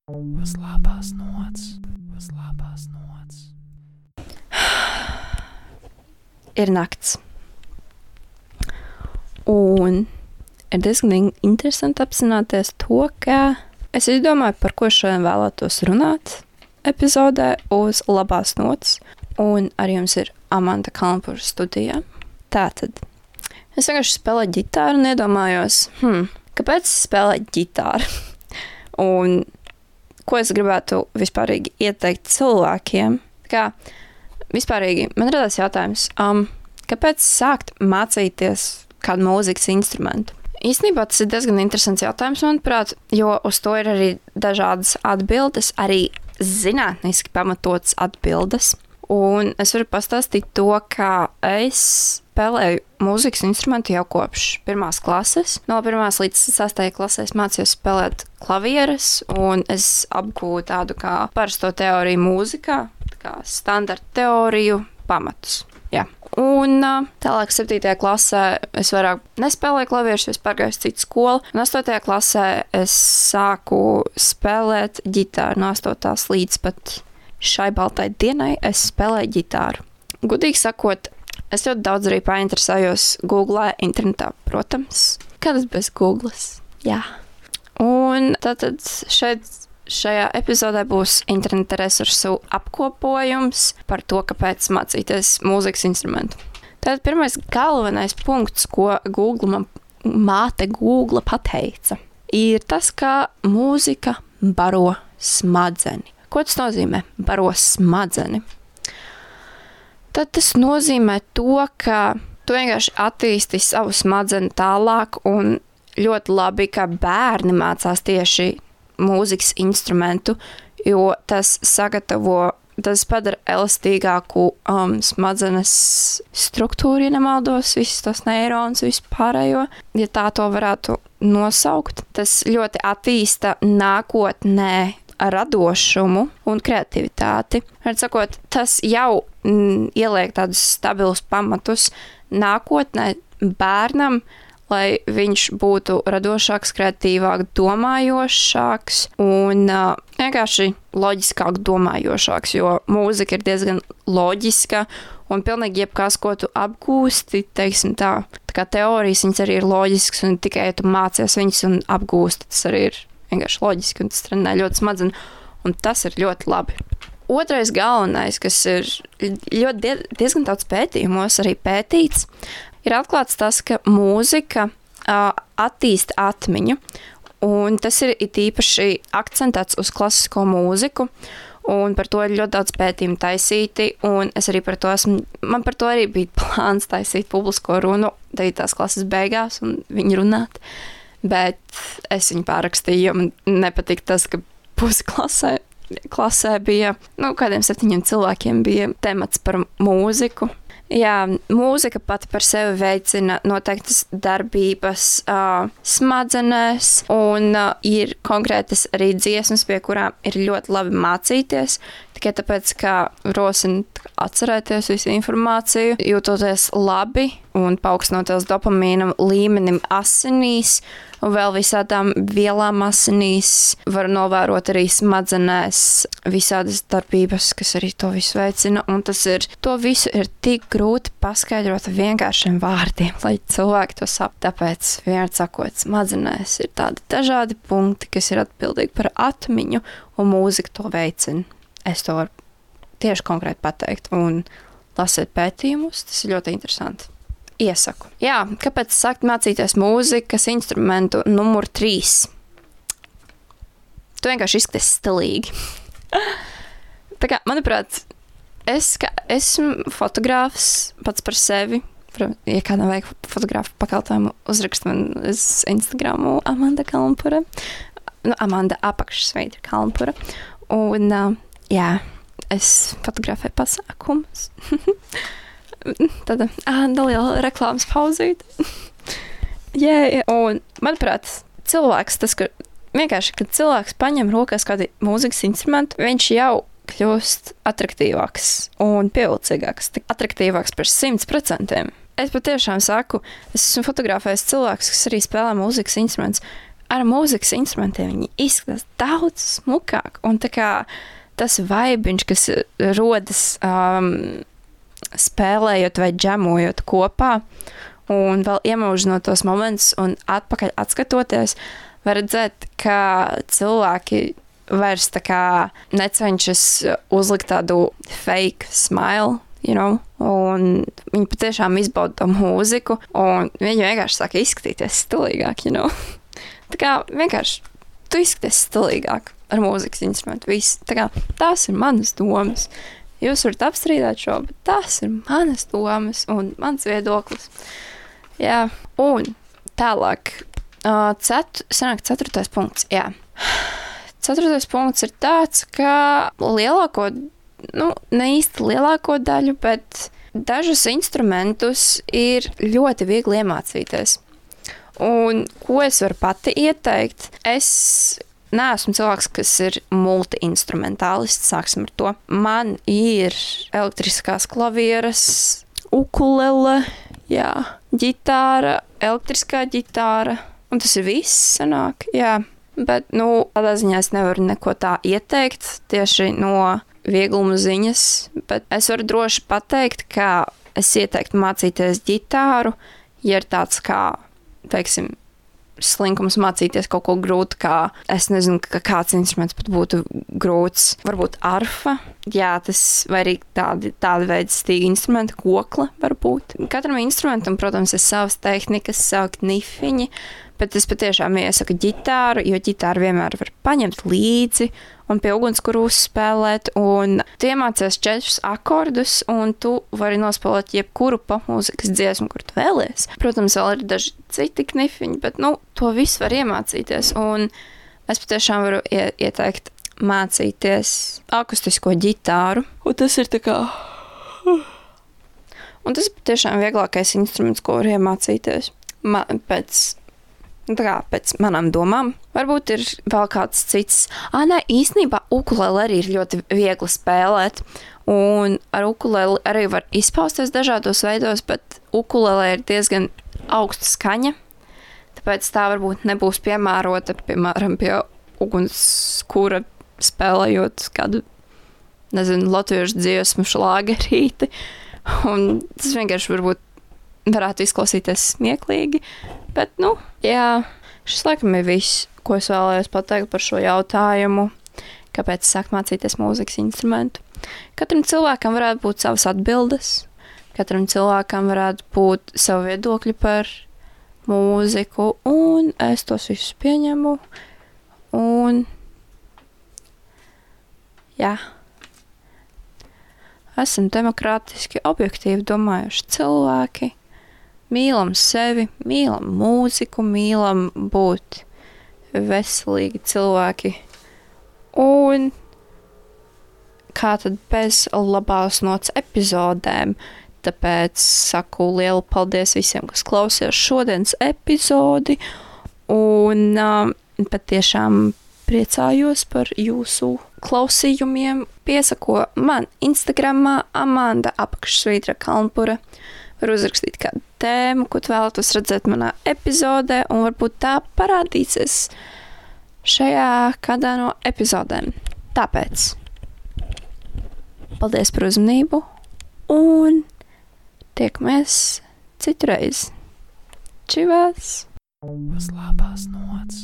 Uz labās nots, uz labās nots. Ir nakts. Un ir diezgan interesanti apzināties to, ka es izdomāju, par ko šodien vēlētos runāt epizodē uz labās nots. Un ar jums ir Amanda Kalnpura studijā. Tātad, es vienkārši spēlēju ģitāru un iedomājos, kāpēc spēlēt ģitāru? Un ko es gribētu vispārīgi ieteikt cilvēkiem? Kā vispārīgi man radās jautājums, kāpēc sākt mācīties kādu mūzikas instrumentu? Īstenībā tas ir diezgan interesants jautājums, manuprāt, jo uz to ir arī dažādas atbildes, arī zinātniski pamatotas atbildes. Un es varu pastāstīt to, ka es spēlēju mūzikas instrumentu jau kopš 1. klases. No 1. līdz 6. klasē es mācījos spēlēt klavieres, un es apgūvu tādu kā parasto teoriju mūzikā, kā standarta teoriju pamatus. Jā. Un tālāk 7. klasē es vairāk nespēlēju klavierus, jo es pārgāju uz citu skolu. Un 8. klasē es sāku spēlēt ģitāru no 8. līdz pat šai baltai dienai es spēlēju ģitāru. Gudīgi sakot, es ļoti daudz arī painteresējos Googlē, internetā, protams. Kādas bez Googles? Jā. Un tātad šajā epizodē būs interneta resursu apkopojums par to, kāpēc mācīties mūzikas instrumentu. Tātad pirmais galvenais punkts, ko māte Google pateica, ir tas, ka mūzika baro smadzeni. Ko tas nozīmē? Baro smadzeni. Tad tas nozīmē to, ka tu vienkārši attīsti savu smadzeni tālāk un ļoti labi, ka bērni mācās tieši mūzikas instrumentu, jo tas padara elastīgāku smadzenes struktūru, ja nemaldos, visus tos neironus, vispārējo, ja tā to varētu nosaukt. Tas ļoti attīsta nākotnē radošumu un kreativitāti. Var sakot, tas jau ieliek tādus stabilus pamatus nākotnē bērnam, lai viņš būtu radošāks, kreatīvāk domājošāks un vienkārši loģiskāk domājošāks, jo mūzika ir diezgan loģiska un pilnīgi jebkas, ko tu apgūsti, teiksim tā kā teorijas, viņas arī ir loģiskas un tikai, ja tu mācies viņas un apgūsti, tas arī ir vienkārši loģiski, un tas trenē ļoti smadzeni, un tas ir ļoti labi. Otrais galvenais, kas ir diezgan daudz pētījumos arī pētīts, ir atklāts tas, ka mūzika attīsta atmiņu, un tas ir īpaši akcentēts uz klasisko mūziku, un par to ir ļoti daudz pētījumu taisīti, un es arī man par to arī bija plāns taisīt publisko runu 9. klases beigās un viņu runāt. Bet es viņu pārakstīju, jo man nepatika tas, ka pusi klasē bija, kādiem 7 cilvēkiem bija temats par mūziku. Jā, mūzika pati par sevi veicina noteiktas darbības smadzenēs, un ir konkrētas arī dziesmas, pie kurām ir ļoti labi mācīties, tikai tāpēc, ka rosina atcerēties visu informāciju, jūtoties labi un paaugstinoties dopamīna līmenim asinīs, un vēl visādām vielām asinīs var novērot arī smadzenēs visādas darbības, kas arī to visu veicina, un to visu ir tik grūti paskaidrot vienkāršiem vārdiem, lai cilvēki to saprastu. Tāpēc, vienmēr sakot, smadzenēs ir tādi dažādi punkti, kas ir atbildīgi par atmiņu, un mūzika to veicina. Es to varu tieši konkrēti pateikt, un lasiet pētījumus, tas ir ļoti interesanti. Iesaku. Jā, kāpēc sākt mācīties mūzikas instrumentu numur 3? Tu vienkārši izskaties stilīgi. Tā kā, manuprāt, esmu fotogrāfs pats par sevi. Ja kādam vajag fotografu pakalpojumu, uzrakst man uz Instagramu Amanda Kalnpura. Amanda apakšsveidra Kalnpura. Un, jā, es fotografēju pasākumus. Tāda neliela reklāmas pauzīt. Un, manuprāt, kad cilvēks paņem rokās kādu mūzikas instrumentu, viņš jau kļūst attraktīvāks un pievilcīgāks, attraktīvāks par 100%. Es patiešām saku, es esmu fotografējis cilvēkus, kas arī spēlē mūzikas instrumentus. ar mūzikas instrumentiem viņi izskatās daudz smukāk. Un tā kā tas vaibiņš, kas rodas spēlējot vai džemojot kopā, un vēl iemūžinot tos momentus un atpakaļ atskatoties, var redzēt, ka cilvēki vairs tā kā necenšas uzlikt tādu fake smile, un viņi patiešām izbauda to mūziku, un viņi vienkārši sāk izskatīties stilīgāk, Tā kā vienkārši tu izskaties stilīgāk ar mūzikas instrumentu. Viss. Tā kā tās ir manas domas. Jūs varat apstrīdēt šo, bet tās ir manas domas un mans viedoklis. Jā, un tālāk. Sanāk 4. punkts, jā. 4. punkts ir tāds, ka ne īsti lielāko daļu, bet dažus instrumentus ir ļoti viegli iemācīties. Un ko es varu pati ieteikt? Es neesmu cilvēks, kas ir multi-instrumentālists, sāksim ar to. Man ir elektriskās klavieres, ukulele, jā, ģitāra, elektriskā ģitāra, un tas ir viss sanāk, jā. Bet, tādā ziņā es nevaru neko tā ieteikt tieši no viegluma ziņas, bet es varu droši pateikt, ka es ieteiktu mācīties ģitāru, ja ir tāds kā, teiksim, slinkums mācīties kaut ko grūtu, kā, es nezinu, ka kāds instruments pat būtu grūts, varbūt arfa, jā, tas, vai arī tāda veida stīga instrumenta, kokla varbūt. Katram instrumentam, protams, ir savas tehnikas, savi knifiņi, bet es patiešām iesaku ģitāru, jo ģitāru vienmēr var paņemt līdzi un pie ugunskura uzspēlēt, un tu iemācies 4 akordus, un tu vari nospēlēt jebkuru popmūzikas dziesmu, kur tu vēlies. Protams, vēl ir daži citi knifiņi, bet, to visu var iemācīties, un es patiešām varu ieteikt mācīties akustisko ģitāru, un tas ir tā kā... Un tas ir patiešām vieglākais instruments, ko var iemācīties. Pēc manām domām. Varbūt ir vēl kāds cits. Īstenībā ukulele arī ir ļoti viegli spēlēt. Un ar ukuleli arī var izpausties dažādos veidos, bet ukulele ir diezgan augsta skaņa. Tāpēc tā varbūt nebūs piemērota, piemēram, pie ugunskura spēlējot kādu, latviešu dziesmu šlāgerīti. Un tas vienkārši varbūt varētu izklausīties smieklīgi, bet, jā, šis laikam ir viss, ko es vēlējos pateikt par šo jautājumu, kāpēc sāk mācīties mūzikas instrumentu. Katram cilvēkam varētu būt savas atbildes, katram cilvēkam varētu būt savu viedokļu par mūziku, un es tos visus pieņemu, un, jā. Esam demokrātiski, objektīvi domājuši cilvēki, mīlam sevi, mīlam mūziku, mīlam būt veselīgi cilvēki. Un kā tad bez labās nots epizodēm? Tāpēc saku lielu paldies visiem, kas klausījās šodienas epizodi. Un patiešām priecājos par jūsu klausījumiem. Piesako man Instagramā Amanda_Kalnpura. Var uzrakstīt kādu tēmu, ko tu vēlatos redzēt manā epizodē, un varbūt tā parādīsies šajā kādā no epizodēm. Tāpēc paldies par uzmanību, un tiekamies citreiz. Čivās! Uz labās nots.